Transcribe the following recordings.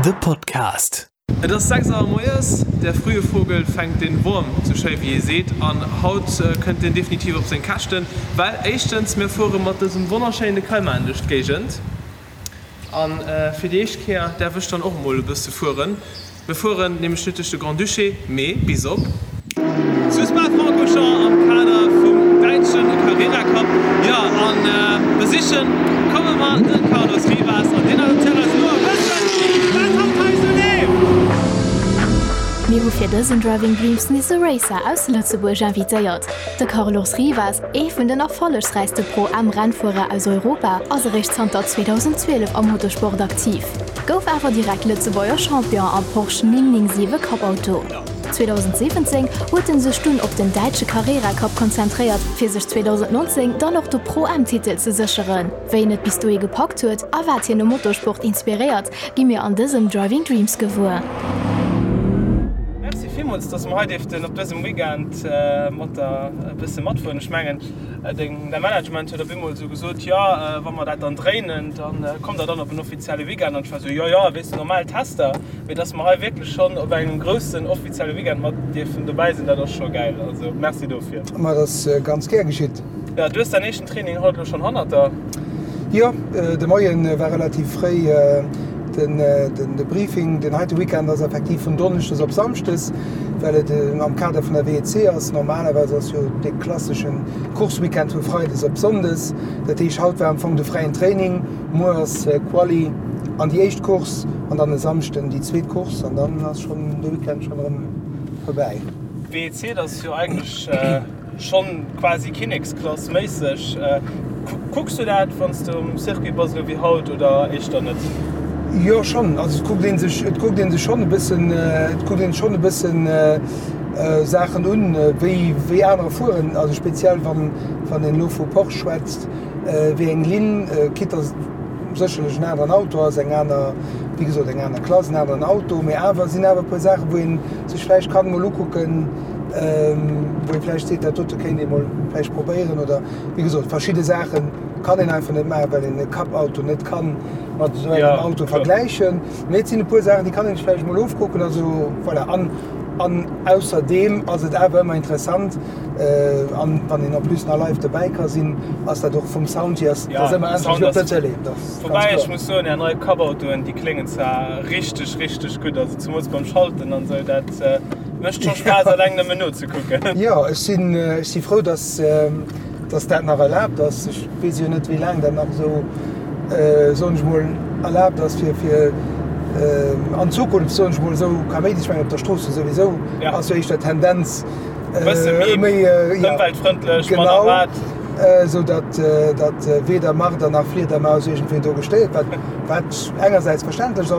The Podcast. Et ass 6 Auer moies, der frühe Vogel fänkt den Wurm, sou schéi wéi ee seet, an haut kënnt deen definitiv op seng Käschten, well éischtens mir fuere mat dësem wonnerschéine Cayman duerch d'Géigend an fir déi éischt Kéier däerf ech dann och emol e bësse fueren. Mir fueren nämlech net duerch de Grand-Duché, mee bis op. Zu Spa-Francorchamps am Kader vum däitsche Carrera Cup. Jo, a besichen komme mer de Carlos Rivas an deen erzielt eis elo e bëssen, wat haut hei esou leeft. Mir hu fir dësen Driving Dreams nees e Racer aus Lëtzebuerg invitéiert. De Carlos Rivas, ee vun den erfollegsräichste Pro-Am-Rennfuerer aus Europa, ass eréischt zanter 2012 am Motorsport aktiv. Gouf awer direkt Lëtzebuerger Champion am Porsche 997 Cup-Auto. 2017 huet en sech dunn op den däitsche Carrera Cup konzentréiert, fir sech 2019 dann och de Pro-Am-Titel ze sécheren. Wéi en et bis dohi gepackt huet a wat hien um Motorsport inspiréiert, gi mir an dësem Driving Dreams gewuer. Merci villmools, dass mer hei dierften op dësem Weekend mat der e bësse matfueren. Ech mengen, Deng, däi Management huet op eemol esou gesot, jo, wa mer dat dann dréinen, da kommt der dann op en offizielle Weekend. An ech war esou, jo, jo, weess de, normal Tester. Mee dass mer hei wierklech schonn op engem groussen offizielle Weekend mat dierfen dobäi sinn, dat ass scho gäil. Also Merci dofir. Ma dat ass ganz gär geschitt. Jo, du hues däin éischten Training haut elo schonn hannert der. Jo, de Moie war relativ fréi den, de Briefing. Den heite Weekend ass effektiv vun Donneschdes op Samschdes. Well et am Kader vun der WEC ass. Normalerweis ass jo dee klassesche Course-Weekend vu Freides op Sonndes. Dat heescht, haut war am Fong de fräien Training, muer ass Quali an déi éischt Course an dann e Samschden déi zweet Course an dann ass schonn de Weekend schonn erëm vorbäi. WEC, dat ass jo eigentlech Schonn quasi Kinneksklass méisseg. Kucks du dat wanns de um Circuit bass elo wéi haut oder éischter net? Jo schonn, also et kuckt een sech, et kuckt een sech schonn e bëssen, et kuckt een schonn e bëssen Saachen un wéi wéi anerer fueren, also speziell wann wann een elo vu Porsche schwätzt, wéi eng Linn, quitte dass et sécherlech en aneren Auto ass, eng aner, wéi gesot eng aner Klass, en aneren Auto, mee awer sinn awer e puer Saachen wou een sech vläicht kann emol ukucken, wou ee vläicht seet, dat dote kéint ee mol vläicht probéieren oder wéi gesot, verschidde Saache kann een einfach net maachen, well een e Cup-Auto net ka mat esou engem Auto vergläichen. Mee et sinn e puer Saachen, déi kann een sech vläicht mol ofkucken. Also voilà. An, an ausserdeem ass et awer ëmmer interessant, an wann een en plus nach live dobäi ka sinn, ass dat och vum Sound hier, ass dat ëmmer anescht wéi op der Tëlee. Dat ass ganz Woubäi ech kloer. muss soen, Är nei Cup-Autoen, déi kléngen zwar richteg, richteg gutt, also zemools beim Schalten an esou, dat. Mécht scho Spaass alleng nëmmen nozekucken. Jo, ech sinn, ech si frou, dass, dass dat nach erlaabt ass. Ech weess jo net, wéi laang dat nach esou, soen ech mol, erlaabt ass, fir, fir an Zukunft, soen ech mol, esou Kaméidi. Ech mengen, op der Strooss jo souwisou ass jo éischter d'Tendenz méi ëmweltfrëndlech, manner Watt. Genau, esou datt, datt weder Marder nach Fliedermaus iergendwéi do gestéiert, wat, wat engersäits verständlech,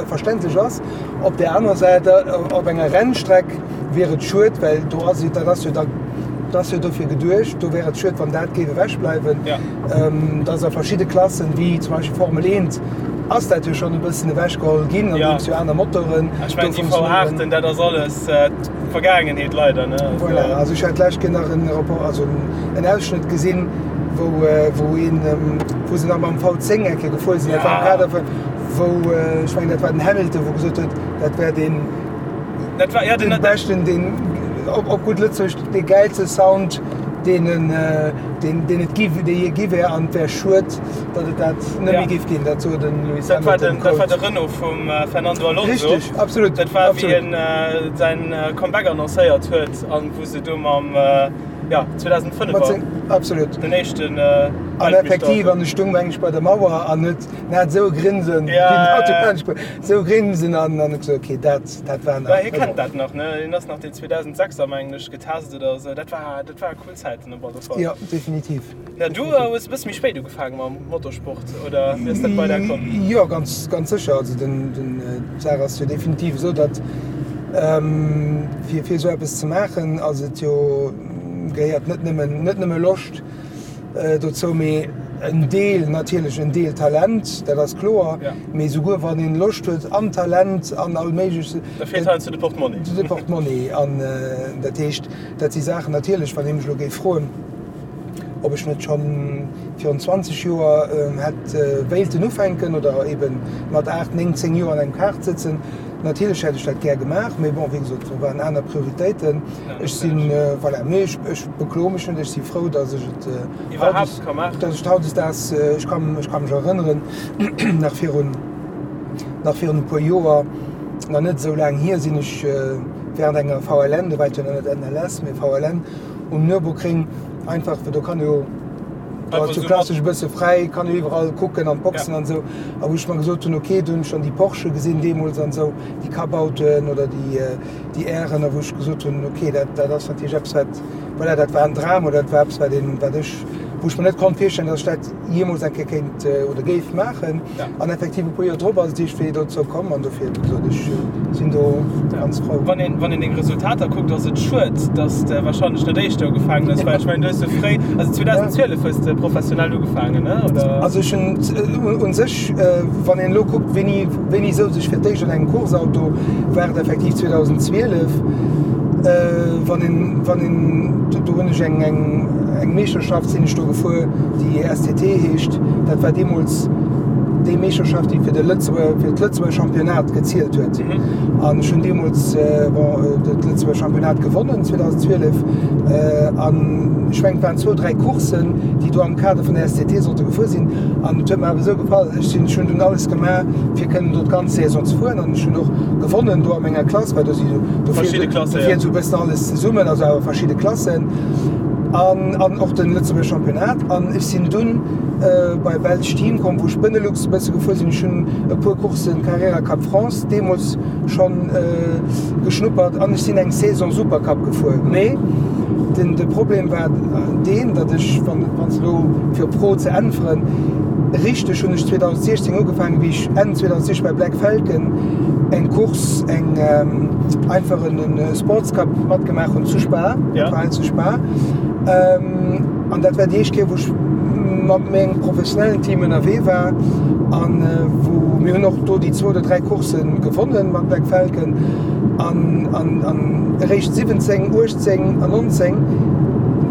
verständlech ass. Op där anerer Säit, op enger Rennstreck wier et schued, well do ass et, dat ass jo da, dat ass jo dofir geduecht, do wär et schued, wann dat géif ewechbleiwen. Dass a verschidde Klassen, wéi zum Beispill Formel 1, ass dat jo schonn e bëssen ewechgeholl ginn, andeems jo aner Motoren do funktionéieren. Ech mengen, déi V8en, dat ass alles d'Vergaangenheet leider, ne? Voilà, also ech hat d'lescht Kéier nach en Rapport, also en Ausschnëtt gesinn, wou, wou een, wou se nach mam V10 eng Kéier gefuer sinn, dat war am Kader vun, wou, ech mengen dat war den Hamilton, wou gesot huet, dat wär deen, dat war, ja, den, den beschten, deen, op, op gutt Lëtzebuergesch, dee gäilste Sound, deen en, deen, deen et gi, dee je gi wär, an et wär schued, datt et dat net méi géif ginn. Dat sot den Lewis Dat war Hamilton. den, dat war de Renault vum Fernando Alonso. Richtig, absolut. Dat war, wéi absolut. en säin Comeback annoncéiert huet an wou se do mam, ja, 2005 Mat seng, absolut. den éischten An effektiv, an e stung meng ech bei der Mauer an huet En hat esou e Grinsen, Ja, wéi den ja, Auto ja. laanscht fuer, esou e Grinsen an an ech gesot, okay, dat, dat war Ja, nach. hie kennt dat nach, ne? Hien ass nach deen 2006er, mengen ech, getest oder esou. Dat war, dat war cool Zäiten op alle Fall. Jo, definitiv. Ja, du hues e bësse méi spéit ugefaange mam Motorsport, oder wéi ass dat bei der komm? Jo, ganz, ganz sécher. Also den, den, d'Saach ass jo definitiv esou, datt fir, fir esou eppes ze maachen, ass et jo, gehéiert net nëmmen, net nëmme Loscht, Dozou, mee en Deel, natierlech en Deel Talent, dat ass kloer, mee souguer wann een Loscht huet an Talent an all méiglech. Da feelt heiansdo de Portmonni. De Portmonni. An dat heescht, dat si Saachen natierlech, wann ee mech elo géif froen. ob ech net schonn virun 20 Joer hätt wéilten ufänken oder ebe mat 8, 9, 10 Joer an engem Kart sëtzen. Natierlech hätt ech dat gär gemaach, mee bon, wéi gesot, do waren aner Prioritéiten. Ech sinn, voilà, mee ech, ech bekloe mech net, ech si frou, datt ech et Iwwerhaapt ka maachen. Datt ech et hautdesdaags, ech ka, ech ka mech erënneren, nach virun, nach virun e puer Joer, nach net esou laang hier, sinn ech während enger VLN, do war et jo nach net NLS, mee VLN, um Nürburgring einfach, well do kann jo, do ass jo klassesch e bësse fräi, kann jo iwwerall kucken an d'Boxen an esou. A wou ech mer gesot hunn, ok, do hunn ech dann déi Porsche gesinn deemools an esou, déi Cup-Autoen oder déi, déi Ären, a wou ech gesot hunn, ok, dat, dat ass natierlech eppes wat, voilà, dat war en Dram oder dat war eppes wat een, wat ech, wou ech mer net konnt virstellen, datt ech dat jeemools eng Kéier kéint oder géif maachen. An effektiv e puer Joer drop ass et iergendwéi dozou komm an dofir, wéi gesot, ech sinn do ganz frou. Wann een, wann een deng Resultater kuckt, ass et schued, datt s de wahrscheinlech net éischter ugefaangen hues, well ech mengen, du hues jo fréi, also 2012 hues de professionell ugefaangen, ne, oder? Also ech hunn u sech, wann een elo kuckt, wéini, wéini souz ech fir d'éischt an engem Course-Auto, war et effektiv 2012. Wann een, wann een, do hunn ech eng, eng, eng Meeschterschaft sinn ech do gefuer, déi STT heescht. Dat war deemools déi Meeschterschaft, déi fir de Lëtzebuerger, fir d'Lëtzebuerger Championnat gezielt huet. An ech hunn deemools, bon, dat Lëtzebuerger Championnat gewonnen 2012. An ech mengen, et waren zwou, dräi Courssen, déi do am Kader vun der STT sollte gefuer sinn. An et huet mer awer esou gefall, ech sinn, ech hunn dunn alles gemaach, fir kënnen do d'ganz Saison ze fueren. An ech hunn och gewonnen do a menger Klass, well do si do Verschidde Klassen, do fiert esou e bëssen alles zesummen, also awer verschidde Klassen. An, an och de Lëtzebuerger Championnat. An ech sinn dunn bei Belsch Team komm, wou ech Benelux e bësse gefuer sinn. Ech hunn e puer Courssen Carrera Cup France deemools schonn geschnuppert an ech sinn eng Saison Supercup gefuer. Mee den, de Problem war deen, datt ech, wann, wann s elo fir op d'Fro ze äntweren, richteg hunn ech 2016 ugefaangen, wéi ech Enn 2016 bei Black Falcon eng Course, eng einfach en Sports Cup matgemaach hunn zu Spa, dat war hei zu Spa. An dat war déi éischt Kéier, wou ech mat mengem professionellen Team ënnerwee war an wou mir hunn och do déi zwou oder dräi Coursse gewonnen mat Black Falcon an an an eréischt 17, 18 an 19,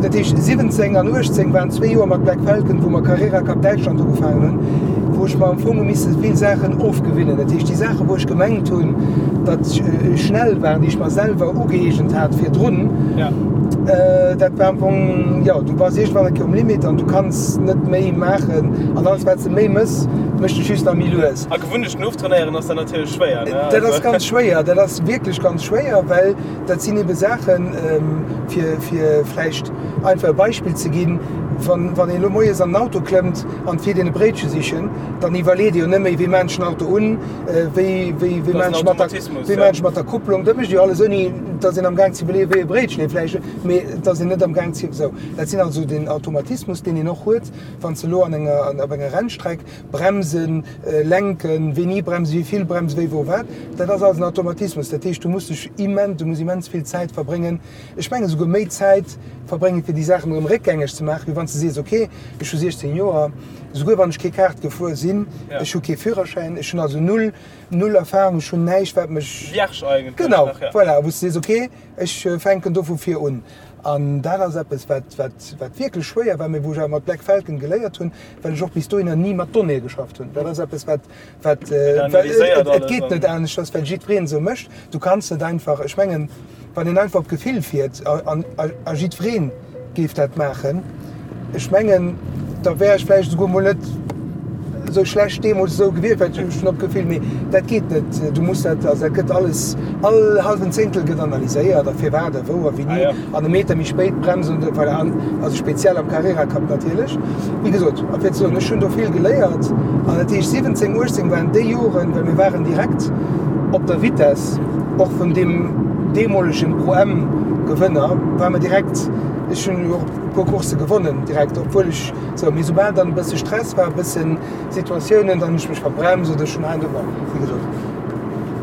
dat heescht 17 an 18 waren zwee Joer mat Black Falcon, wou mer Carrera Cup Däitschland ugefaangen hunn, wou ech mer am Fong hu misse vill Saachen ofgewinnen. Dat heescht déi Saachen, wou ech gemengt hunn, datt ech schnell waren, déi ech mer selwer ugëeegent hat virdrun, Dat war am Fong, jo, du bass iergendwann eng Kéier um Limit an du kanns net méi maachen an alles wat s de méi mëss, mécht dech just nach méi lues. A Gewunnechten oftrainéieren ass dann natierlech schwéier, ne? Dat ass ganz schwéier, dat ass wierklech ganz schwéier, well dat sinn ebe Saachen, fir, fir vläicht einfach e Beispill ze ginn, wann, wann een elo moies an den Auto klëmmt an et fiert een e Bréitche sichen, dann iwwerleet ee jo net méi, wéi maan ech den Auto un, wéi, wéi, wéi maan ech mat der, wéi maan ech mat der Kupplung, dat mécht ee jo alles ouni, Et ass een am Gaang ze iwwerleeën, wéi e Bréitchen ee vläicht, mee et ass een net am Gaang ze, esou. Dat sinn also den Automatismus, deen een och huet, wann s de elo an enger, op enger Rennstreck bremsen, lenken, wéini bremsen, wéi vill bremsen, wéi, wou, wat, dat ass alles en Automatismus. Dat heescht, du muss dech immens, du muss immens vill Zäit verbréngen, ech mengen esouguer méi Zäit verbréngen, fir déi Saachen erëm réckgängeg ze maachen, wéi wann s de sees, okay, ech hu 16 Joer, esouguer wann ech kee Kart gefuer sinn, ech hu kee Führerschäin, ech hunn also null Null Erfahrung, ech hunn näischt wat mech. Vierge eigentlech Genau, nach, ja. Voilà, wou s de sees, ok, ech fänken do vu vir un. An dat ass eppes, wat, wat, wat wierklech schwéier war, mee wou ech awer mat Black Falcon geléiert hunn, well ech och bis dohinner ni mat Donnéeë geschafft hunn. Dat ass eppes, wat, wat, analyséiert et alles geet net an. aneschters, well jiddwereen esou mécht. Du kanns net einfach, ech mengen, wann een einfach op Gefill fiert a, a, a jiddwereen géif dat maachen, ech mengen, da wär ech vläicht esouguer mol net esou schlecht deemools esou gewiescht, well ech hunn op Gefill, mee dat geet net. Du muss dat, also dat gëtt alles, all hallwen Zéngtel gëtt analyséiert a firwat a wou a wéini an e Meter méi spéit bremsen oder voilà, an also speziell am Carrera Cup natierlech. Wéi gesot, a fir ze soen, ech hunn do vill geléiert an dat heescht 17, 18 waren déi Joren, well mir waren direkt op der Vitess och vun deem deemolegen Pro-Am-Gewënner, ware mer direkt, ech hunn och e puer Coursse gewonnen direkt, obwuel ech sou, mee soubal dann e bësse Stress war, e bëssen Situatiounen, dann hunn ech mech verbremst oder ech hunn hei an do, bon, wéi gesot.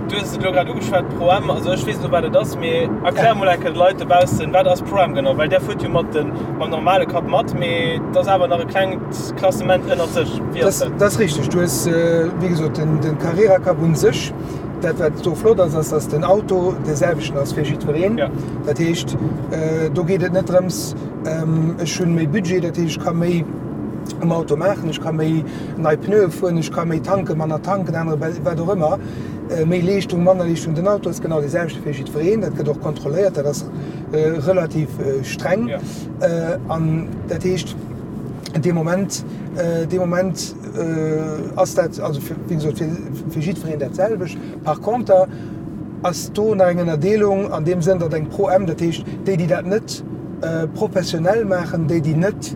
Du hues et elo grad ugeschwat, Pro-Am, also ech weess elo wat et ass, mee erklär mol eng Kéier de Leit dobaussen, wat ass Pro-Am genau? Well där fuert jo mat de, mam normale Cup mat, mee et ass awer nach e klengt Klassement ënnert sech. Wéi ass dat? Dat ass richteg. Du hues, wéi gesot, den, den Carrera Cup un sech, dat wat do flott ass, ass dass den Auto dee selwechten ass fir jiddwereen. Ja. Dat heescht, do geet et net drëms. Ech hunn méi Budget, dat heescht ech ka méi um Auto maachen, ech ka méi nei Pneue fueren, ech ka méi tanken, manner tanken, anere wat och ëmmer, méi Leeschtung, manner Leeschtung. Den Auto ass genau dee selwechte fir jiddwereen, dat gëtt och kontrolléiert, dat ass relativ streng. An dat heescht dee Moment, dee Moment ass dat also fir, wéi gesot, fir fir jiddwereen dat selwecht. Par conter ass do nach eng Ënnerdeelung an deem Sënn, datt eng Pro M, dat heescht déi, déi dat net professionell maachen, déi, déi net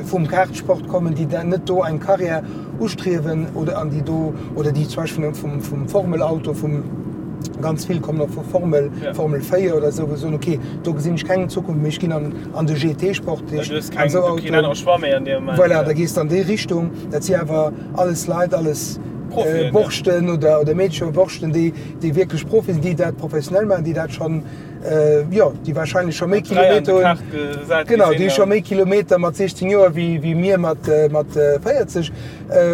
vum Kartsport kommen, déi net do eng Karriär ustriewen oder an déi do, oder déi zum Beispill vum vum Formelauto, vum, ganz vill kommen och vu Formel, Formel 4 oder esou, wou se soen, okay, do gesinn ech keng Zukunft méi, ech ginn an an de GT-Sport, dat heescht an esou Autoen. Voilà, da gees de an déi Richtung. Dat si awer alles Leit, alles Borschten oder oder Meedcher, Borschten, déi déi wierklech Profi sinn, déi dat professionell maachen, déi dat schonn, jo, déi warscheinlech scho méi Kilometer hunn, genau, déi scho méi Kilometer mat 16 Joer wéi wéi mir mat mat 40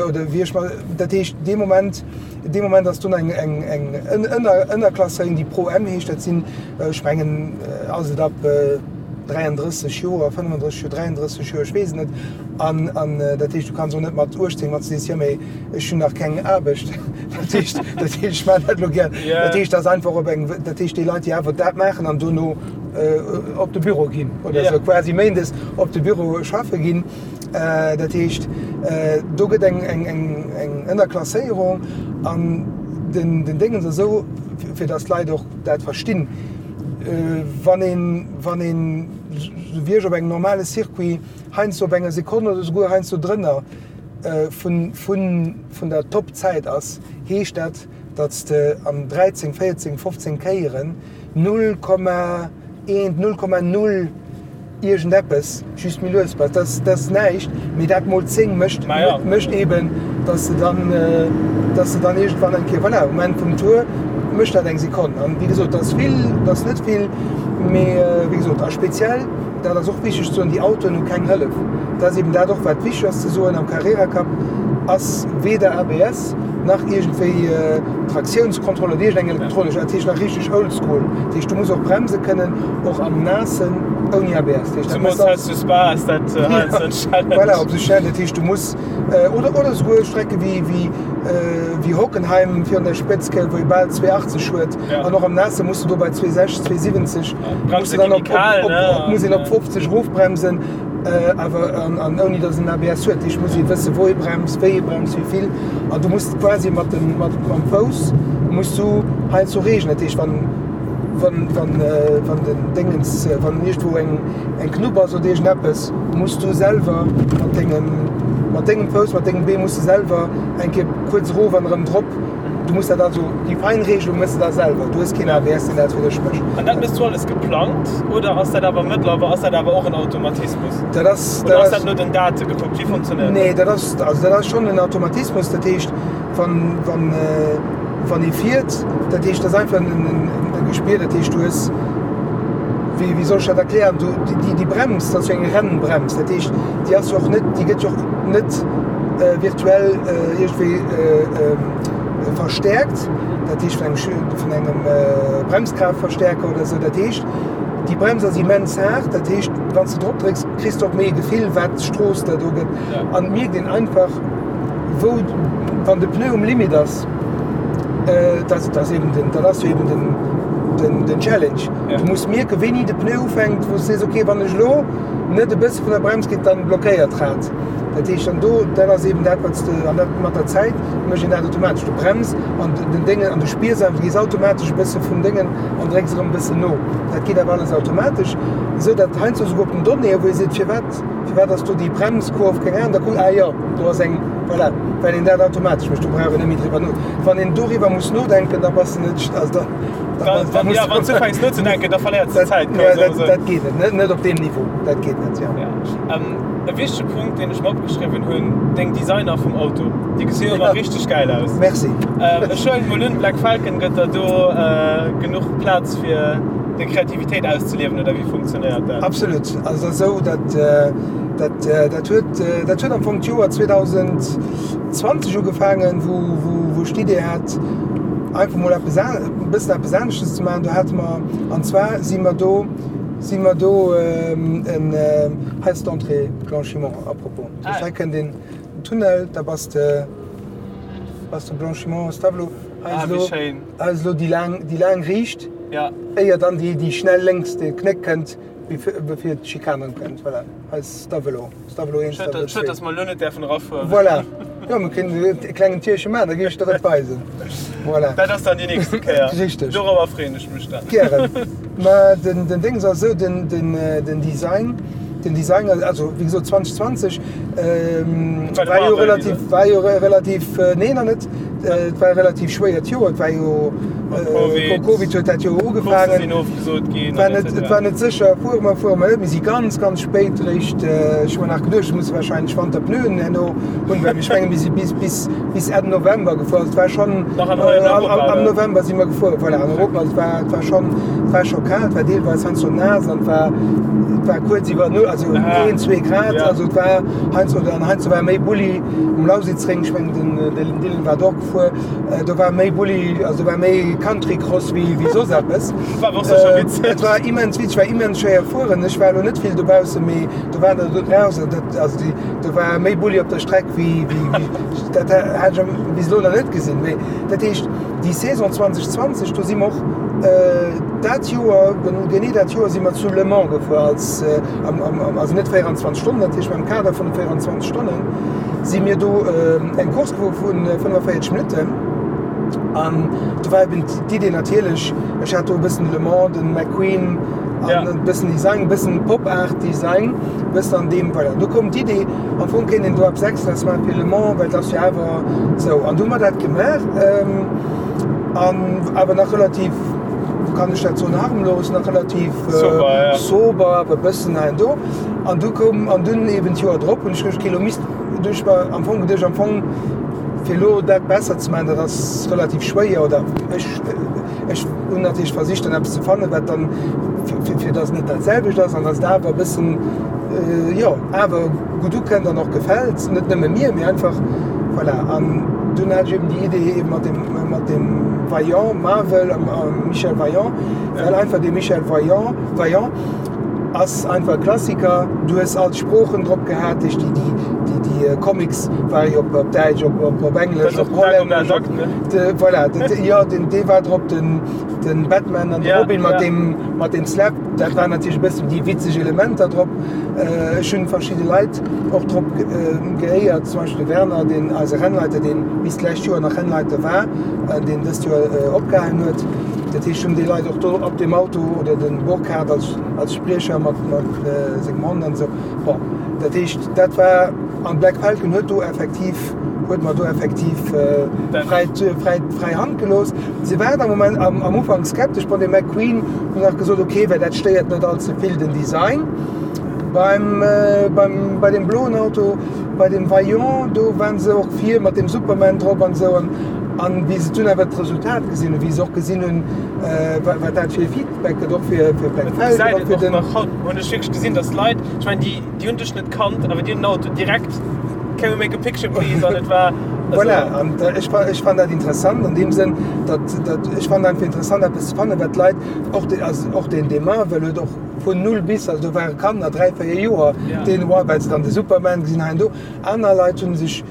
oder wéi ech mat, dat heescht dee Moment, dee Moment ass dunn eng eng eng Ënner Ënnerklasséierung, déi Pro M heescht, dat sinn, ech mengen, ass et ab 33 Joer, 35 Joer, 33 Joer, ech weess et net. An, an dat heescht, du kanns och net mat 18, wann s du sees, jo mee ech hunn nach keng Aarbecht, dat heescht, dat heescht, ech maachen dat elo gär. Dat heescht, dat ass einfach op eng, dat heescht déi Leit, déi awer dat maachen an dono op de Büro ginn oder esou, quasi méindes op de Büro schaffe ginn. Dat heescht, do gëtt eng, eng, eng, eng Ënnerklasséierung an den, den Déngens ass esou, fir datt d'Leit och dat verstinn, wann een, wann een, esou wéi ech op engem normale Circuit, heiansdo op enger Sekonn oder souguer heiansdo drënner vun der Top-Zäit ass, heescht dat, datt s de an 13, 14, 15 Kéieren 0,1, 0,0 iergendeppes just méi lues bass. Dat ass näischt, mee dat mol 10 mécht mécht eeben, datt s de dann, datt s de dann iergendwann eng Kéier, voilà, um Enn vum Tour mécht dat eng Sekonn. An wéi gesot, dat ass vill, dat ass net vill, mee wéi gesot, a speziell, Dat ass och wichteg ze soen, déi Autoen hu keng Hëllef. Dat ass eben dat och, wat wichteg ass ze soen, Am Carrera Cup ass weder ABS nach iergendwéi Traktiounskontroll oder iergendeng elektronesch, dat heescht nach richteg oldschool. Dat heescht, du muss och bremse kënnen, och am Naassen, ouni ABS. Dat heescht, dat muss alles. Zemools zu Spa ass dat heiansdo en Challenge. Voilà, op sou Stellen. Dat heescht, du muss, oder, oder esouguer Strecke wéi, wéi, wéi Hockenheim virun der Spëtz, wou ee bal 2,80 huet, an och am Naasse muss du do bei 2,60, 2,70. Bremse gi méi kal, ne? Muss een op 50 erofbremsen, awer an ouni datt een ABS huet. Ech muss ee wësse wou ee bremst, wéi ee bremst, wéi vill. An du muss quasi mat dem mat mam Fouss muss du heiansdo reegelen. Dat heescht wann wann wann wann den Déngens wann iergendwou eng eng Knupp ass oder iergendeppes, muss du selwer mat dengem mat dengem Fouss, mat dengem Bee muss de selwer eng Kéier kuerz erof an erëm drop. Du muss dat also, déi Feinregelung mëss de da selwer. Du hues keen ABS, deen dat fir dech mécht. An dat mëss du alles geplangt oder ass dat awer mëttlerweil, ass dat awer och en Automatismus? Dat ass, Oder ass dat no den Date gekuckt? Wéi funktionéiert dat? Nee, dat ass, also dat ass schonn en Automatismus. Dat heescht, wann, wann, wann ee fiert, dat heescht, dat ass einfach en, e Gespier. Dat heescht, du hues, wéi, wéi soll ech dat erklären, du, déi, déi Brems, dat ass jo eng Rennbrems. Dat heescht, déi ass jo och net, déi gëtt jo och net virtuell iergendwéi verstäerkt, dat heescht vun engem, vun engem Bremskraaftverstärker oder esou. Dat heescht, déi Brems ass immens haart, dat heescht, wann s de drop drécks, kriss de och méi e Gefill, wat d'Strooss der do gëtt. An et mierkt een einfach, wou, wann de Pneu um Limit ass, dat ass eben den, dat ass jo eben den, den, den Challenge. Du muss mierken, wéini de Pneu ufänkt, wou s de sees, okay, wann ech elo net e bësse vun der Brems ginn, dann blockéiert d'Rad. Dat heescht, an do, dat ass eben dat, wat s de, an dat mat der Zäit mécht een dat automatesch. Du brems an den Déngen an du spiers einfach, du gees automatesch e bësse vum Déngen an drécks erëm e bëssen no. Dat geet awer alles automatesch, esou datt heiansdo esouguer op den Donnéeë, wou ee seet, firwat, firwat ass do déi Bremskurv, keng Ahnung, da kuckt, ah jo, do ass eng, voilà, well een dat automatesch mécht. Do brauch een net méi driwwer no. Wann een doriwwer muss nodenken, da bass de net, also da, da, da muss. Ja, wann s du ufänks nozedenken, da verléiers de Zäit. Dat, dat geet net, net op deem Niveau, dat geet net, jo. E wichtege Punkt, deen ech mer opgeschriwwen hunn, deng Designer vum Auto, déi gesi jo ëmmer richteg gäil aus. Merci. Ech huelen mol un, Black Falcon gëtt der do genuch Plaz fir deng Kreativitéit auszeliewen, oder wéi funktionéiert dat? Absolut. Also et ass esou, dat dat dat huet dat huet am Fong d'Joer 2020 ugefaangen, wou wou wou ech d'Idee hat, einfach mol eppes e bëssen eppes aneschtes ze maachen. Do hate mer, an zwar si mer do. Si mer do en, hei ass d'Entrée Blanchimont à propos. Ah. Hei kënnt een Tunnel, da bass de, bass de Blanchimont, Stavelot. Hei ass elo, hei ass elo déi laang, déi laang Riicht, éier dann déi, déi schnell lénks, de Knéck kënnt, bevir d'Schikane kënnt. Voilà, hei ass Stavelot. Stavelot 1, Stavelot 2. Schued, dass mer elo net däerfen erafueren. Voilà. Jo, mir kënnen e klengen Tierche maachen, da géif ech der et weisen. Voilà. Dat ass dann déi nächste Kéier. Richteg. Dorobber freeën ech mech dann. Gären. Mä den, den Déngs ass esou, den, den, den Design, den Design, also wéi gesot 2020 war jo relativ, war jo relativ, nee nach net, et war e relativ schwéiert Joer, et war jo, Covid, Covid huet dat Joer ugefaangen. Coursse sinn ofgesot ginn. War net, et war net sécher, fuere mer, fuere mer net. Mir si ganz, ganz spéit eréischt, ech hu mer nach geduecht, ech muss wahrscheinlech Wanterpneuen herno hunn, well ech menge mir si bis, bis, bis Enn November gefuer. Also et war schonn, Nach an Europa, am November si mer gefuer, voilà, an Europa. Also et war, et war schonn, et war scho kal, et war deelweis heiansdo naass an et war, et war kuerz iwwer Null, also een, zwee Grad. Also et war heiansdo, an heiansdo war méi Bulli um Lausitzring, ech mengen den, den Dylan war do och gefuer. Do war méi Bulli, also do war méi Countrycross wéi wéi soss eppes. War och sécher witzeg. Et war immens witzeg, war immens schwéier fueren. Ech war elo net vill dobaussen, mee do waren der do draussen, dat, also déi, do war méi Bulli op der Streck wéi, wéi, wéi, dat hat ech bis elo nach net gesinn. Mee dat heescht, déi Saison 2020, do si mer och dat Joer, genee dat Joer si mer zu Le Mans gefuer als, am, am, also net 24 Stonnen natierlech, mee am Kader vun de 24 Stonnen si mir do eng Course gefuer vu 45 Minutten an do war eben d'Idee natierlech, ech hat do e bëssen Le Mans, de McQueen an e bëssen Design, e bëssen Pop-Art Design, e bëssen an deem, voilà. Do koum d'Idee, am Fong kéint een do eppes Extraes maache fir Le Mans, well et ass jo awer esou. An du hu mer dat gemaach an awer nach relativ, kann ech dat soen, harmlos, nach relativ sober, awer e bëssen hei an do. An du koum, an dunn eben d'Joer drop hunn ech geduecht, okay, elo misst, du ech mer am Fong geduecht, am Fong fir elo dat besser ze maachen, dat ass relativ schwéier, oder ech, ech hunn natierlech versicht dann eppes ze fannen, wat dann, fir, fir datt et net dat selwecht ass an datt et awer e bëssen, jo, awer gutt ukënnt an och gefält, net nëmme mir, mee einfach, voilà. An dunn hat ech eben déi Idee eben mat dem, mat dem Vaillant, Marvel, Michel Vaillant, well einfach dee Michel Vaillant, Vaillant, Ass einfach e Klassiker. Du hues all d'Sproochen drop gehat, déi déi déi Comics ware jo op Däitsch, op op op Englesch, op Hollännesch, op de voilà, de jo den dee war drop, den den Batman an de Robin mat deem mat deem Slap, dat waren natierlech e bëssen déi witzeg Elementer drop. Ech hunn verschidde Leit och drop geéiert, zum Beispill de Werner, deen eise Rennleiter, deen bis d'lescht Joer nach Rennleiter war, deen dëst Joer opgehalen huet. Dat heescht, hunn déi Leit och do op deem Auto oder de Burkhard als, als Spriecher mat, mat sengem Hond an esou. Bon, dat heescht, dat war, an Black Falcon huet do effektiv, huet mer do effektiv fräi, fräi, fräi Hand gelooss. Se waren am Moment, am, am Ufank skeptesch. Bon, de McQueen huet nach gesot, okay, well dat stéiert net all ze vill den Design. Beim, beim, bei deem bloen Auto, bei dem Vaillant, do waren se och vir mat dem Superman drop an esou. An, An wéi se dunn awer d'Resultat gesinn hunn, wéi se och gesinn hunn, wat dat fir e Feedback gëtt, och fir Black Falcon, och fir den. Haut hunn ech wierklech gesinn, datt Leit, ech mengen, déi, déi hunn dech net kannt, awer déi hunn den Auto direkt, Can we make a picture please? An et war. Voilà, an ech, ech fannen dat interessant an deem Sënn, datt, datt, ech fannen einfach interessant eppes ze fannen, wat d'Leit, och de, also och deen, dee Marvel huet och vun null bis, also do ware Kanner, 3, 4 Joer, deen, well se dann de Superman gesinn hei an do. Aner Leit hu sech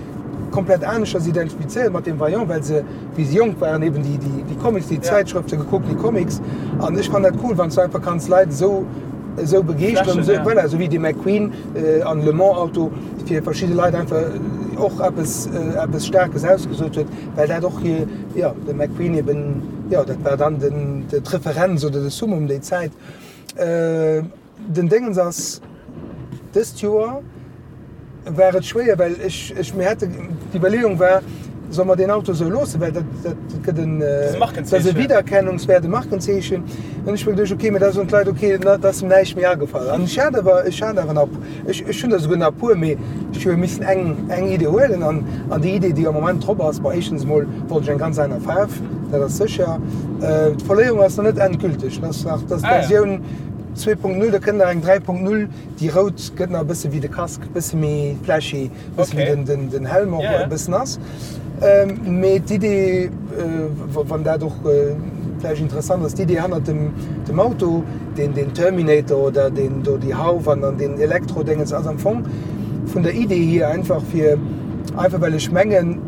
komplett aneschters identifizéiert mat dem Vaillant, well se, wéi se jonk waren, eben déi, déi, déi Comics, déi Zäitschrëfte gekuckt, déi Comics. An ech fannen dat cool, wann s du einfach kanns Leit esou, esou begeeschteren, esou, voilà, esou wéi de McQueen an Le Mans Auto fir verschidde Leit einfach och eppes, eppes Staarkes ausgesot huet, well dat och hir, jo, de McQueen eben, jo, dat war dann den, d'Referenz oder de Summum déi Zäit. Den Déngens ass, dëst Joer war et schwéier, well ech, ech, mir hate, d'Iwwerleeung war, solle mer deen Auto esou loossen, well dat, dat gëtt en, dat ass e Wiedererkennungswäert, e Markenzeechen. An ech hu mer geduecht, okay, mä da soen d'Leit, okay, da ass em näischt méi agefall. An ech hat awer, ech hat awer nach, ech, ech hunn der souguer nach e puer, mee ech hu jo missen eng, eng Idee huelen. An, an déi Idee, déi am Moment drop ass, bon, éischtens emol wollt ech eng ganz aner Faarf, dat ass sécher. D'Verléierung ass nach net endgülteg, dat ass nach, dat ass d'Versioun 2.0, da kënnt nach eng 3.0, déi rout gëtt nach e bësse wéi de Casque, e bësse méi flashy, e bësse wéi den, den Helm och e bëssen ass. Mee d'Idee, wann dat och. vläicht interessant ass, d'Idee hannert dem, dem Auto, deen, deen Terminator oder deen do déi Hauf an an deen Elektrodéngens ass am Fong vun der Idee hier einfach fir, einfach well ech mengen,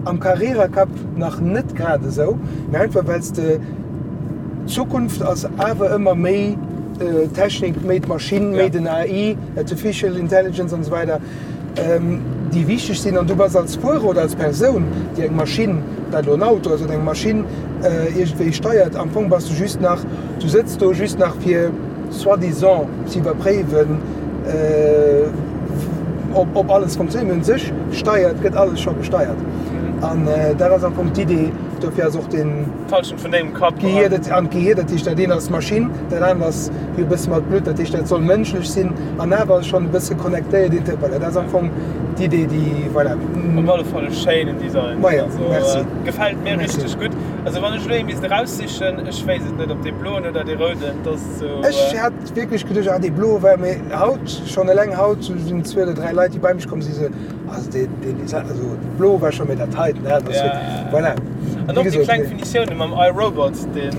am Carrera Cup nach net grad esou, mee einfach well s de, d'Zukunft ass awer ëmmer méi Technik, méi d'Maschinn, méi den AI, Artificial Intelligence an esou weider, déi wichteg sinn. An du bass als Fuerer oder als Persoun, déi eng Maschinn, ob dat elo en Auto ass oder eng Maschinn, iergendwéi steiert, am Fong bass du just nach, du sëtz do just nach fir soi-disant ze iwwerpréiwen, ob alles funktionéiert. Mee un sech steiert, gëtt alles scho gesteiert. An dat ass am Fong d'Idee. Dofir ass och den. D'Halschent vun dengem Kapp. D'Gehier, dat, an d'Gehier, dat heescht, dat eent ass Maschinn, dat anert ass jo e bësse mat Blutt, dat heescht, dat soll mënschlech sinn an awer schonn e bësse connectéiert, inter, voilà, dat ass am Fong d'Idee, déi, voilà. Op alle Fall e schéinen Design. Majo, merci. Gefält mir richteg gutt. Also wann ech elo ee misst eraussichen, ech wéisst et net, ob dee bloen oder dee rouden, dat ass esou. Ech hat wierklech geduecht, ah, dee bloe war, mee haut, schonn eleng haut sinn zwee oder dräi Leit, déi bei mech komm sinn, esou, Also deen, deen Design, also blo war scho, mee dat heiten, dat ass wierklech, voilà. An och déi kleng Finitioune mam I, Robot, deen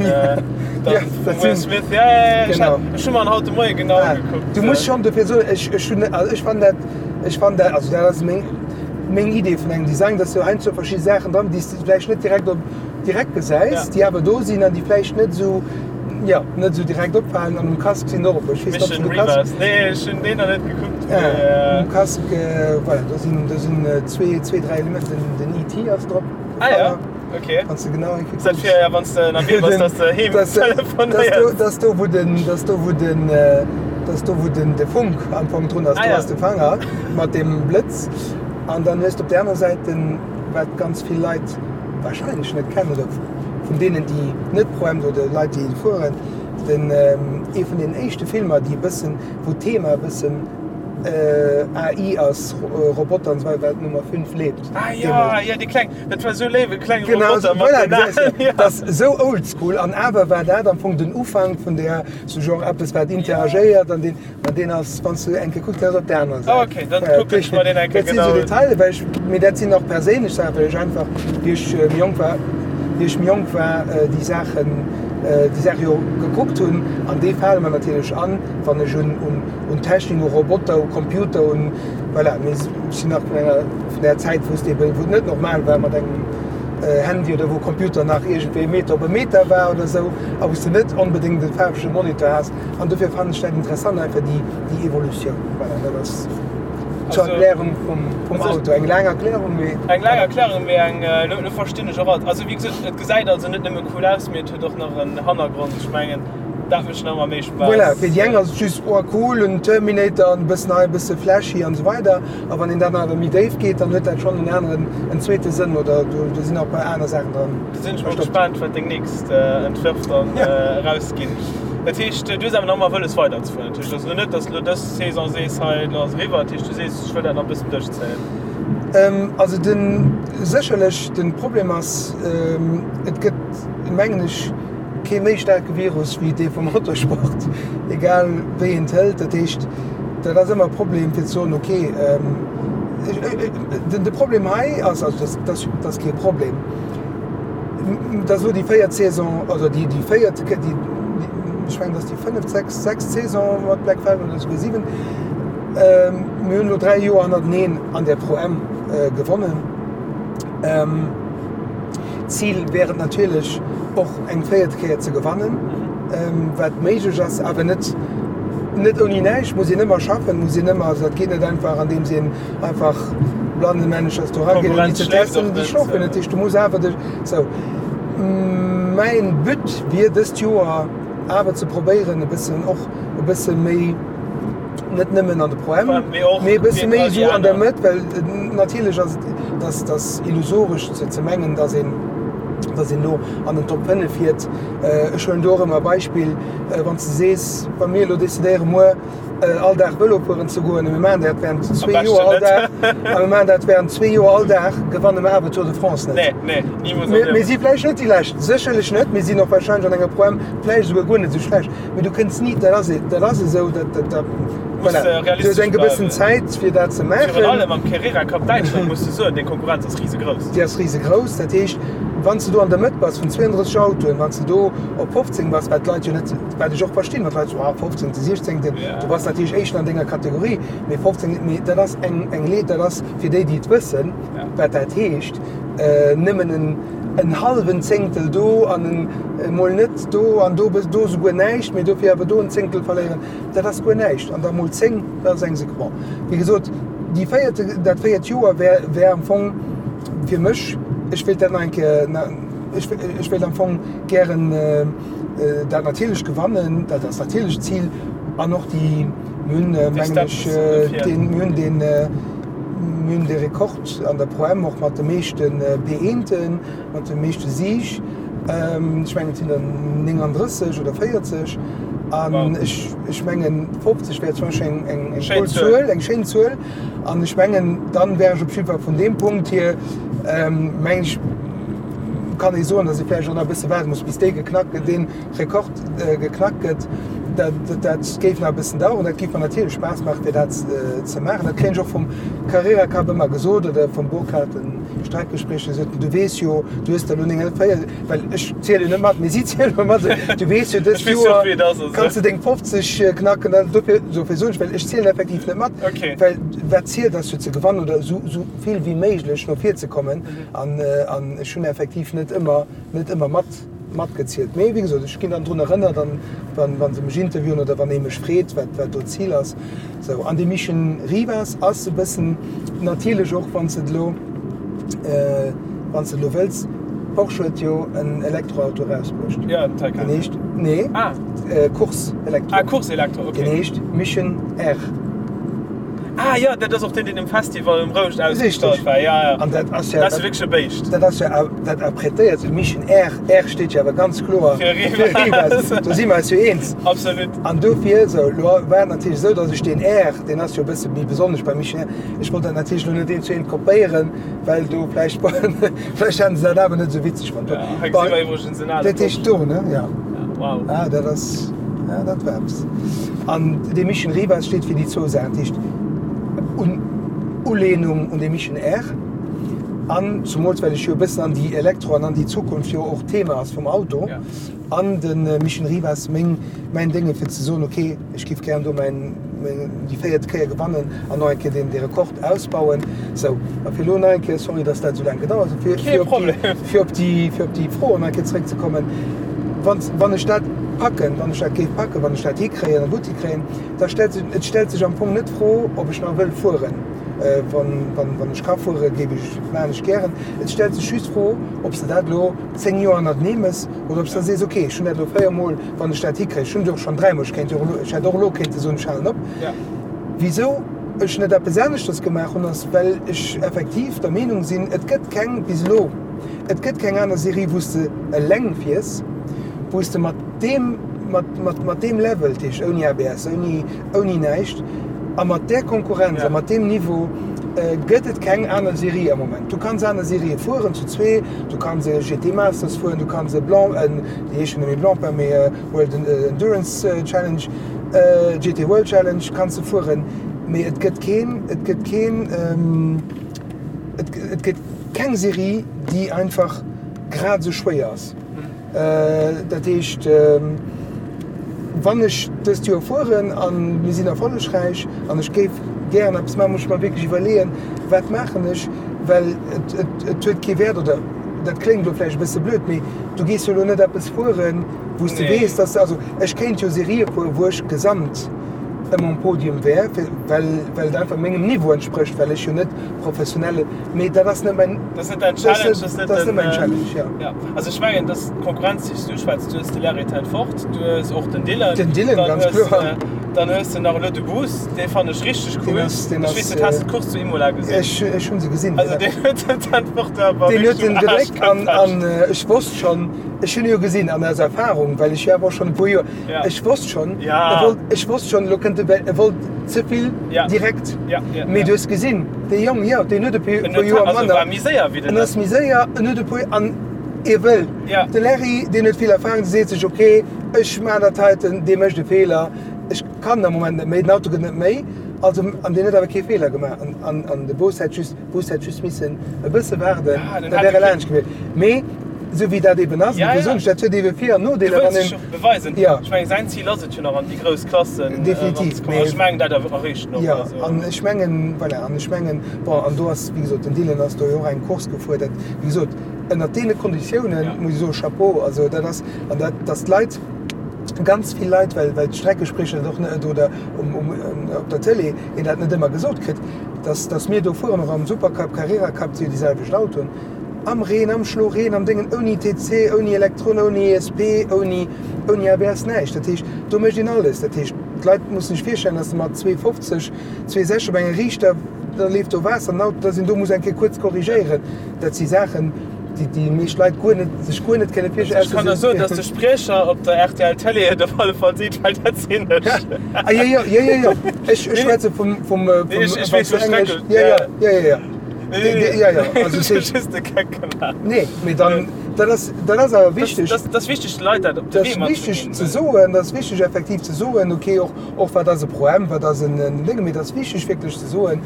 dann vum Will Smith, ja, ja, ja, ech hu mer en haut de Moie genau ugekuckt. Du muss schonn dofir soen, ech, ech hunn, also ech fannen dat, ech fannen dat, also dat ass meng, meng Idee vun engem Design, dass du heiansdo verschidde Saachen dran, déi s de vläicht net direkt op, direkt gesäis, déi awer do sinn an déi vläicht net esou, Jo, net esou direkt opfalen an um Casque sinn och e puer. Ech weess net, ob du de Casque. Nee, ech hunn deen nach net gekuckt. Ah, um Casque, voilà, do sinn, do sinn zwee, zwee, dräi Elementer. Den, den ET ass drop. Ah ja, okay. Wann s de genau eng Kéier kucks. Dat fir, ja, wann s de ënnerwee bass, dass de heem telefonéiers. Dat ass do, wou den, dat ass do, wou den, dat ass do, wou den, de Funk am Fong drun ass. Do ass de Fanger mat deem Blëtz. An dann hues de op där aner Säit den, wat ganz vill Leit wahrscheinlech net kennen oder vun deenen déi net pro Emd oder Leit déi fueren, den ee vun den éischte Filmer déi e bëssen, wou d'Thema e bëssen AI ass, Roboter an esou weider, war d'Nummer 5 lebt. Ah jo, jo déi kleng, dat war esou léif, e klenge Roboter mat den Aen. Dat ass esou oldschool an awer war dat am Fong den Ufank vun där, sou genre eppes wat interagéiert an deen. Ma deen ass, wann s du eng Kéier kucks, deen ass op der anerer Säit. Ah, okay, dann kucken ech mer deen eng Kéier genau un. Dat sinn esou Detailer, well ech, mee dat sinn och perséinlech Saachen, well ech einfach, wéi ech méi jonk war, wéi ech méi jonk war, déi Saachen, déi Saache jo gekuckt hunn. An déi fale mer natierlech an, wann ech un, un, un Technik, u Roboter, u Computer, un, voilà. Mee ech sinn nach vun enger, vun där Zäit, wou s de eben, wou et net normal war mat engem Handy oder wou Computer nach iergendwéi e Meter op e Meter war oder esou a wou s de net onbedéngt e faarwege Monitor has. An dofir fannen ech dat interessant, einfach déi, déi Evolutioun. Voilà, dat ass zur Erklärung vum, vum Auto. Eng laang Erklärung, mee. Eng laang Erklärung, mee eng, elo, elo verstinn ech och alt. Also wéi gesot, et gesäit also net nëmme cool aus, mee et huet och nach en Hannergrond. Ech mengen, dat mécht nach ëmmer méi Spaass. Voilà, fir déi eng ass et just, oh cool, en Terminator an e bëssen hei, e bësse flashy an esou weider. A wann een dann awer méi déif geet, dann huet dat schonn en aneren, en zweete Sënn oder do, do sinn och e puer aner Saachen dran. Do sinn ech mol gespaant, wat deng nächst Entwërf dann erausginn. Dat heescht, du hues awer nach ëmmer wëlles weiderzefueren. Dat heescht also net, datt elo dës Saison sees, hei elo ass eriwwer. Dat heescht, du sees, ech wëll dat nach e bëssen duerchzéien. Also den, sécherlech de Problem ass, et gëtt, mengen ech, kee méi staarke Virus wéi dee vum Motorsport, egal wéi een et hëlt. Dat heescht, dat ass ëmmer e Problem fir ze soen, okay, de Problem hei ass, also dat ass kee Problem, dat ass elo déi véiert Saison, also déi véiert, déi, ech mengen, dat ass déi fënneft, sechst, sechst Saison mat Black Falcon oder esouguer siwen. Mir hunn elo 3 Joer hannerteneen an der Pro-Am gewonnen. Zil wär et natierlech och eng véiert Kéier ze gewannen, wat méiglech ass, awer net net ouni näischt. Muss een ëmmer schaffen, muss een ëmmer, also dat geet net einfach andeems een einfach blannemänneschers do erageet ouni ze testen, déi schlofen. Dat heescht du muss awer dech sou. Mäin But wier dëst Joer awer ze probéieren e bëssen och e bësse méi, net nëmmen an de Pro-Am, mee e bësse méi esou an der Mëtt, well natierlech ass et, dass dass illusoresch ze ze mengen, dass een dass een elo an den Top 5 fiert. Ech huelen do och ëmmer e Beispill, wann s de sees, wa mir elo decidéiere muer all Dag Vëlo fueren ze goen a mir maachen dat während zwee Joer all Dag a mir maachen dat während zwee Joer all Dag, gewanne mer awer d'Tour de France net. Mir si vläicht net déi Lescht, sécherlech net, mir sinn och wahrscheinlech an enger Pro-Am vläicht esouguer guer net esou schlecht. Mee du kënns ni, dat ass, dat ass esou, dat, dat, dat, voilà. Du hues eng gewëssen Zäit, fir dat ze maachen. Virun allem am Carrera Cup Däitschland muss de soen, déi Konkurrenz ass risegrouss. Déi ass risegrouss. Dat heescht, Wann s de do an der Mëtt bass vun 32 Autoen, wann s de do op 15 bass, wat d'Leit jo net, wat ech och verstinn, wann d'Leit soen, ah 15., 16., du bass natierlech Éischten an denger Kategorie, mee 15., mee dat ass eng, eng Leed, dat ass fir déi, déi et wëssen, wat dat heescht, nëmmen en, en hallwen Zéngtel do an en emol net do an do, do esouguer näischt, mee dofir awer do en Zéngtel verléieren, dat ass guer näischt. An da mol 10, dat ass eng Sek. Bon, wéi gesot, déi véierte, dat véiert Joer wär, wär am Fong fir mech, ech wéilt dat nach eng Kéier, ech, ech wéilt am Fong gären dat natierlech gewannen, dat ass natierlech d'Zil an och déi, mir hunn, mengen ech, deen, mir hunn deen, mir hunn dee Rekord an der Pro-M och mat de meeschte P-eenten, Mat de meeschte Sieg, ech mengen et sinn der 39 oder 40 an ech ech mengen 50 wär zum Beispill eng eng eng cool Zuel, eng schéin Zuel an ech mengen dann wär ech op jiddwer Fall vun deem Punkt hier mengen ech kann ee soen, datt ee vläicht och nach e bësse waarde muss bis dee geknackt gëtt, dee Rekord geknackt gëtt. Dat dat géif nach e bëssen daueren. Dat géif mer natierlech Spaass maachen fir dat ze maachen. Dat kréien ech och vum Carrera Cup ëmmer gesot oder vum Burkhard, den Streckegespréich, déi soten, du weess jo, du hues der elo 49, well ech zielen net mat, mee si ziele mat, du weess jo, dëst Joer kanns de deng 50 knacken. An dofir, dofir soen ech, well ech zielen effektiv net mat, well wat zielt ass jo ze gewannen oder esou vill wéi méiglech no vir ze kommen. An ech hunn effektiv net ëmmer, net ëmmer mat, matgezielt. Mee wéi gesot, ech ginn dann drun erënnert an wa se mech interviewen oder wann ee mech freet, wat, wat do d'Zil ass. Sou, an de Mission Rivas ass e bëssen natierlech och, wann s de et elo, wann s de et elo wëlls, Porsche huet jo en Elektroauto erausbruecht. Jo, den Taycan. Deen heescht, nee, ah. Course Elektro. Ah, Course Elektro, okay. Deen heescht Mission R. Ah jo, dat ass och deen, deen um Festival um Rouscht ausgestallt war. Ja, ja. An dat ass jo. Dat ass jo wierklech e Béischt. Dat ass jo, dat apprêtéiert sech. Mission R, R steet jo awer ganz kloer fir Rivas. Do si mer eis jo eens. Absolut. An dofir, sou, elo war et natierlech esou, datt ech deen R, deen ass jo e bësse méi besonnesch beim Mission R, ech wollt dat natierlech elo net eent zu eent kopéieren, well do vläicht, vläicht hätten se dat awer net esou witzeg fonnt. Ja, hei gesi mer iwwregens en ale Dat heescht do, ne? Ja. Wow. Ah, dat ass, ja, dat war eppes. An dee Mission Rivas steet fir déi zwou Saachen, dat heescht un Ulehnung un de Mission R an zumools well ech jo e bëssen an déi Elektro an an déi Zukunft jo och Thema ass vum Auto an de Mission Rivas meng mäin Dénge fir ze soen, ok ech giff gären do mäin meng déi véiert Kéier gewannen an nach eng Kéier deen dee Rekord ausbauen. Sou, a fir elo nach eng Kéier, sorry datt dat esou laang gedauert huet, fir Kee fir op déi Problem. fir op déi fir op déi Fro nach eng Kéier zeréckzekommen, wann wann ech dat packen, wann ech dat géif packen, wann ech dat hikréien a gutt hikréien, da stellt sech, et stellt sech am Fong net d'Fro, ob ech nach wëll fueren. Wann, wann, wann ech ka fueren, géif ech, maachen ech gären. Et stellt sech just d'Fro, ob s de dat elo 10 Joer hannertenee méchs oder ob s de sees, ok, ech hunn dat elo 4 Mol, wann ech dat hikréien, ech hunn et och schonn 3 Mol, ech kéint jo och elo, ech hätt och elo kéinte soen, ech halen op. Wisou ech net eppes aneschters gemaach hunn, ass, well ech effektiv der Meenung sinn, et gëtt keng, bis elo, et gëtt keng aner Serie, wou s de eleng fiers, wou s de mat deem, mat, mat, mat deem Level, dat heescht ouni ABS, ouni, ouni näischt, a mat där Konkurrenz a mat deem Niveau gëtt et keng aner Serie am Moment. Du kanns aner Serië fueren zu zwee, du kanns e GT Masters fueren, du kanns e Blanc, déi heeschen net méi Blancpain, mee World Endurance Challenge, GT World Challenge kanns de fueren, mee et gëtt keen, et gëtt keen, et, et gëtt keng Serie, déi einfach grad esou schwéier ass. Dat heescht, wann ech dëst Joer fueren a mir sinn erfollegräich an ech géif gären eppes maachen, muss ech mer wierklech iwwerleeën, wat maachen ech, well et, et, et huet kee Wäert oder dat kléngt elo vläicht e bësse blöd, mee du gees jo elo net eppes fueren, wou s de weess, dass de, also ech kéint jo Serië fueren, wou ech gesamt ëmmer um Podium wär, well, well et einfach mengem Niveau entsprécht, well ech jo net professionelle, mee dat ass net mäin. Dat ass net däin Challenge, dat ass net den. Mäin Challenge, ja. Ja, also ech mengen, dass d'Konkurrenz, déi s du uschwätz, du hues de Larry ten Voort, du hues och den Dylan. Den Dylan, ganz kloer. Dann hues de nach elo de Goos, dee fannen ech richteg cool. Deen ass, deen ass. Ech weess net, has de d'Course zu Imola gesinn? Ech, ech hunn se gesinn. Also deen huet den ten Voort awer Deen huet wierklech en um Aarsch gedréckt an, gepecht. an ech wosst schonn, ech hunn e jo gesinn an aus Erfahrung, well ech jo awer och schonn e puer Joer, Ja. ech wosst schonn, Ja. e wollt, ech wosst schonn, elo kënnt e, well e wollt ze vill Ja. direkt. Ja, ja, Mee ja. du hues gesinn, dee Jong, jo, deen huet e puer En huet, Joer also manner. war méi séier wéi den. En ass méi séier, en huet e puer, an e wëll. Ja. De Larry, deen huet vill Erfahrung, dee seet sech, ok, ech maachen dat heiten, dee mécht e Feeler, ech kann am Moment net méi, den Auto gëtt net méi. Also, an deen huet awer kee Feeler gemaach. An, an, an de Boost hätt just, Boost hätt just missen e bësse waarden, Ja, den da hätt wär e e laanscht gewiescht. Mee esou wéi dat eben ass, Ja, dofir ja. soen ech, dat huet ebe Vir an Du Nodeeler, wëlls wann dech een, och beweisen. Ja. Ech mengen, säin Zil ass et jo nach an déi grouss Klassen Definitiv, eranzekommen. mee Ech mengen, dat erreecht en och. Ja, Also. an ech mengen, voilà, an ech mengen, bon, an do ass, wéi gesot, den Dylan ass do jo och eng Course gefuer, dat, wéi gesot, ënnert deene Konditiounen, Ja. muss ech soen, Chapeau, also dat ass, an dat, dass d'Leit, ganz vill Leit, well, well d'Streckespriecher dat och net, oder um, um, op der Tëlee een dat net ëmmer gesot kritt, dass, dass mir do fueren, och am Supercup, Carrera Cup, si jo déi selwecht Autoen, am Reen, am Schloreen, am Déngen, ouni TC, ouni Elektron, ouni ESP, ouni, ouni ABS, näischt. Dat heescht, do mécht een alles. Dat heescht, d'Leit mussen sech virstellen, dass de mat 2,50, 2,60 op enger Riichter, da leeft do Waasser an den Auto, dass een do muss eng Kéier kuerz korrigéieren. Dat si Saachen, déi déi meescht Leit guer net, sech guer net kënne virstellen. Ech kann der soen, dass de Spriecher op der rtl Télé et op alle Fall seet, well dat sinn ech. Ah jo, jo, jo, jo, jo. Ech, ech schwätze vum, vum, vum, Nee, ech, ech weess, wann s du wou Englesch, Strecke, jo, jo, jo, jo, jo. Nee, nee, nee. Jo, jo, also Ech hu just de Geck gemaach. Nee, mee dann, dat ass, dat ass awer wichteg. Dat ass wichteg, de Leit dat op de Dat Wee ass matzeginn. wichteg ze soen, dat ass wichteg effektiv ze soen, okay, och, och wat ass e Pro-M, wat ass en Déngen, mee dat ass wichteg wierklech ze soen,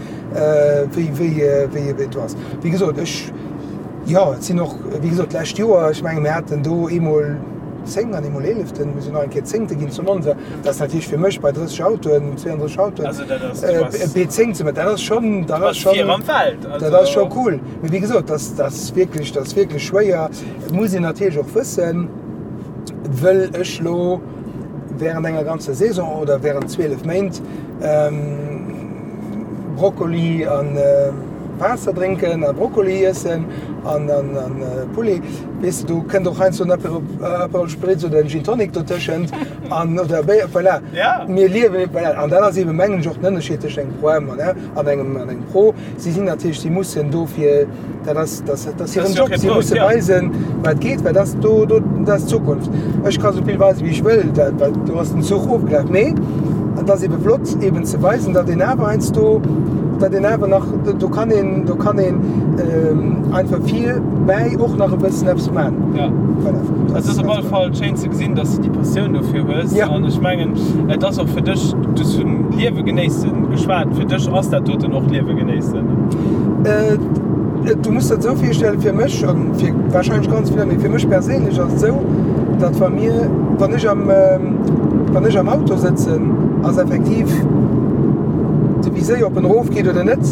wéi, wéi, wéi et do ass. Wéi gesot, ech, jo, et sinn och, wéi gesot, d'lescht Joer, ech menge mir haten do eemol 10 an eemol Eeleften, mir sinn nach eng Kéier Zéngte ginn zu Monza. Dat ass natierlech fir mech bei 30 Autoen, 32 Autoen, Also dat ass, du bass, e P10 ze maachen, dat ass schonn, dat du ass bass vir schonn, am Feld. dat Also ass scho cool. Mee wéi gesot, dat, dat ass wierklech, dat ass wierklech schwéier. Et muss een natierlech och wëssen, wëll ech lo während enger ganzer Saison oder während 12 Méint Brokkoli an Waasser drénken a Brokkoli iessen an Poulet, weess de, do kënnt och heiansdo en Aperol Spritz oder en Gin Tonic dotëschent an oder Béier, voilà. Mir liewen, voilà. An dat ass eeben, mengen ech, och den Ënnerscheed tëscht engem Pro-M an engem Pro. Si sinn natierlech, si mussen dofir, dat ass, dat ass hiren Job, si musse weisen, wat geet, well dat ass do, do, dat ass d'Zukunft. Ech ka sou vill weisen, wéi ech wëll, dat, well do ass den Zuch ofgelaf. Mee et ass ebe flott, eben ze weisen, datt een awer heiansdo, datt een awer nach, do kann een, do kann een einfach virbäi och nach e bëssen eppes man. Ja. Voilà. Et ass op alle Fall schéin ze gesinn, datt s de déi Passioun dofir hues. Ja. An ech mengen, et ass och fir dech, du hues vun Liewe genéissen geschwat, fir dech ass dat doten och Liewe genéissen. Du muss der et esou virstellen, fir mech an fir wahrscheinlech ganz vill, mee fir mech perséinlech ass et esou, datt wa mir, wann ech am, wann ech am Auto sëtzen, ass effektiv de Viséier, ob en erof geet oder net,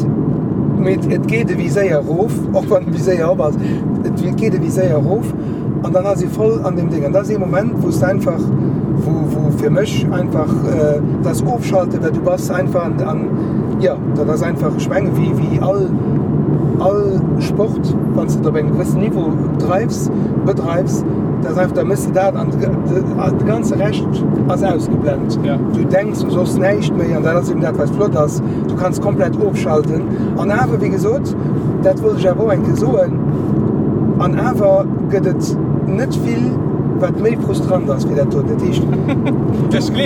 mee et geet e Viséier erof, och wann de Viséier op ass, et geet e Viséier erof an dann ass ee voll an deem Déng. An dat ass ee Moment, wou s de einfach, wou, wou fir mech einfach dat ass Ofschalten, well du bass einfach an, an jo, dat ass einfach, ech menge wéi, wéi all, all Sport, wann s de et op engem gewëssen Niveau dreifs, bedreifs, dat ass einfach, da méchs de dat an de ganze Rescht ass ausgeblent. Du denks u soss näischt méi an dat ass eben dat, wat flott ass, du kanns komplett ofschalten. An awer, wéi gesot, dat wollt ech awer och eng Kéier soen, an awer gëtt et net vill, wat méi frustrant ass wéi dat doten. Dat heescht,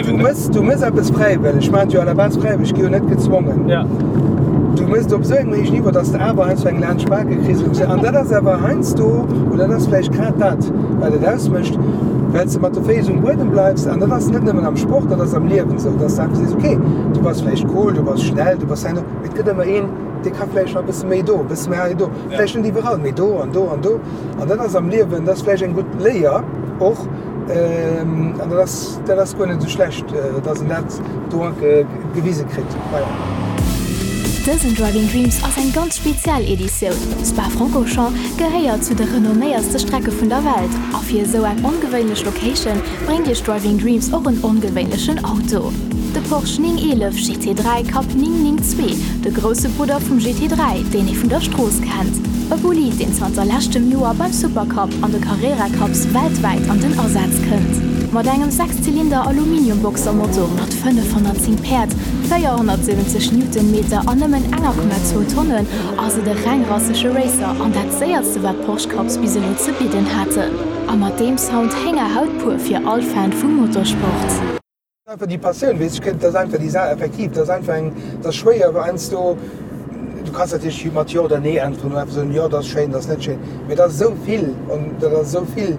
du mëss, du mëss eppes fräiwëlleg, ech maachen et jo à la base fräiwëlleg, ech gi jo net gezwongen. Du mëss et op esou engem héijen Niveau, dass de awer heiansdo eng laanscht d'Bake kriss und esou. An dat ass awer heiansdo, oder dat ass vläicht grad dat, wat et ausmécht, well s de mat de Féiss um Buedem bleifs. An dat ass net nëmmen am Sport, dat ass am Liewen esou, dass de einfach sees, okay, du bass vläicht cool, du bass schnell, du bass hei an do, mee et gëtt ëmmer een, dee ka vläicht nach e bësse méi do, e bësse méi hei do, vläicht net iwwerall, mee do an do an do. An dat ass am Liewen, dat ass vläicht eng gutt Léier och. An dat ass, dat ass guer net esou schlecht, dass een dat do gewise kritt. Voilà. Dësen Driving Dreams ass eng ganz speziell Editioun. Spa-Francorchamps gehéiert zu de renomméiertste Strecke vun der Welt a fir esou eng ongewéinlech Location bréngt iech Driving Dreams och en ongewéinlechen Auto. De Porsche 911 GT3 Cup 992, de grousse Brudder vum GT3, deen ee vun der Strooss kennt. E Bolid, deen zanter leschtem Joer beim Supercup an de Carrera Cups weltwäit an den Asaz kënnt. Mat engem Sechszylinder Aluminium-Boxermotor mat 510 Päerd, 470 Newtonmeter an nëmmen enger Komma zwou Tonnen ass et e reng rassege Racer an dat séierste wat Porsche Cups bis elo ze bidden haten. A mat deem Sound Héngerhaut pur fir all Fan vum Motorsport. Einfach déi Passioun, weess ech, dat ass einfach déi Saach, effektiv, dat ass einfach eng, dat ass schwéier, well heiansdo, du kanns natierlech mat Jo oder Nee äntweren oder einfach soen, jo, dat ass schéin, dat ass net schéin, mee dat ass esou vill an dat ass esou vill.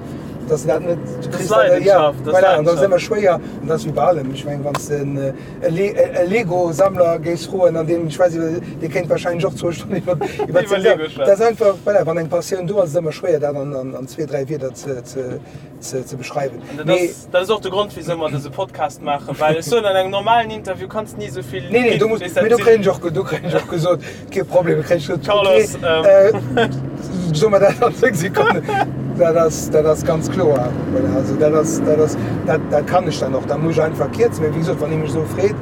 Dass dat net, du kriss dat, ja, voilà, an dat ass ëmmer schwéier, an dat ass wéi bei allem. Ech mengen, wann s de e Lego-Sammler géifs froen, an deen, ech weess net, dee kéint wahrscheinlech och zwou Stonnen iwwer, iwwer seng Lego schwätzen. Dat ass einfach, voilà, wann eng Passioun do ass, ass et ëmmer schwéier, dat an, an zwee, dräi Wierder ze, ze, ze, ze beschreiwen. An dat ass, dat ass och de Grond, wisou mer dëse Podcast maachen, well ech soen, an engem normalen Interview kanns de ni esou vill Nee, nee, do muss, mee do kréien ech och, do kréien ech och gesot, kee Problem, do kréien ech gesot, Carlos, okay, ähm. soe mer dat an 10 Sekonnen. Dat ass, dat ass ganz kloer. Voilà, also dat ass, dat ass, dat, dat kann ech dann och, da muss ech einfach kierzen. Mee wéi gesot, wann ee mech esou freet,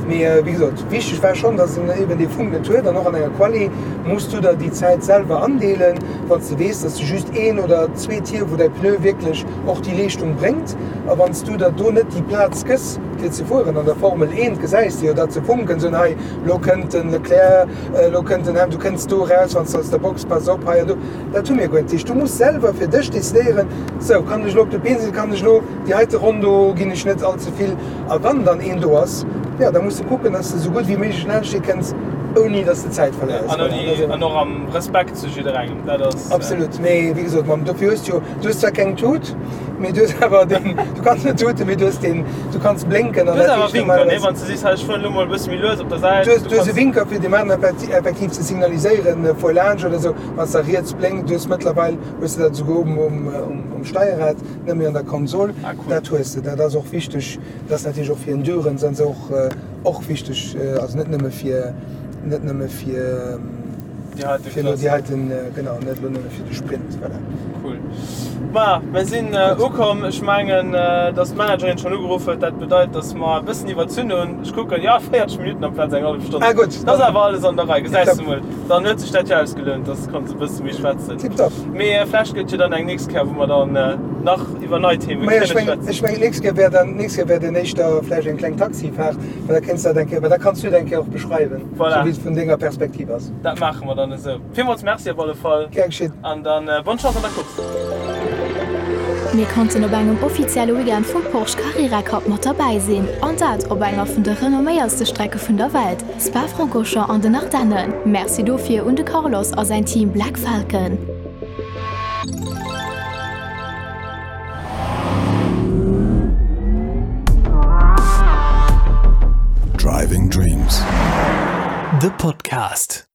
mee wéi gesot, wichteg war schonn, datt en eben dee Funk net huet an och an enger Quali muss du der déi Zäit selwer andeelen, wann s de weess, datt s de just een oder zwee Tier, wou däi Pneu wierklech och déi Leeschtung bréngt. A wann s du der do net déi Plaz gëss, fir ze fueren, an der Formel 1 gesäis de jo dat se funken, soen, hei elo kënnt den Leclerc, elo kënnt den Ham, du kënns do eraus, wann s de aus der Box, pass op hei an do. Dat hu mir guer net. Dat heescht, du muss selwer fir dech decidéieren, sou, kann ech elo op de Been sinn, kann ech elo déi heite Ronn do, ginn ech net all ze vill. A wann dann een do ass, jo, da muss de kucken, dass de sou gutt wéi méiglech laanscht dee kënns, ouni dass de Zäit verléiers. An ouni, an och am Respekt zu jidderengem, dat ass. Absolut, mee wéi gesot, mam, dofir hues du jo, du hues zwar keng Tut, mee du hues awer deen, du kanns net tuten, mee du hues deen, du kanns blénken an dat heescht normalerweis. Du hues awer Winker, nee, wann s de sees, hei ech fueren elo mol e bësse méi lues op der Säit. Du hues, du hues e Winker fir dem aneren effektiv ze signaliséieren, fuer laanscht oder esou, wann s de riets blénkt. Du hues mëttlerweil, hues de dat esouguer um, um, um Steierrad. Net méi an der Konsol, ah, cool. Dat hues de. Dat ass och wichteg, dat ass natierlech och fir Endurance an esou och, och wichteg, also net nëmme fir, net nëmme fir déi elo déi heiten, genau, net elo nëmme fir de Sprint, voilà. Cool. Ma mir sinn ukomm. Ech mengen, dass d'Managerin schonn ugeruff huet. Dat bedeit, dass mer e bëssen iwwerzunn hunn. Ech kucken, jo, 40 Minutten amplaz eng hallef Stonn. Ah gutt. Dat ass awer alles an der Rei, gesäis de mol. Dann huet sech dat jo ausgelount, dass konns e bësse méi schwätzen. Tiptop. Mee vlächtt gëtt jo dann eng nächst Kéier, wou mer dann nach iwwer nei Themen kënne schwätzen. Ech mengen, d'nächst Kéier wär dann, d'nächst Kéier wär dann éischter vläicht eng kleng Taxifaart, well da kéints de dat eng Kéier, well da kanns du et eng Kéier och beschreiwen, Voilà. esou wéi et vun denger Perspektiv ass. Dat maache mer dann esou. Villmools Merci op alle Fall. Gär geschitt. An dann bonne Chance an der Course. Mir konnten op engem offizielle Weekend vum Porsche Carrera Cup mat derbäi sinn, an dat op enger vun de renomméiertste Strecke vun der Welt. Spa-Francorchamps an den Ardennen. Merci dofir un de Carlos a säin Team Black Falcon. Driving Dreams, de Podcast.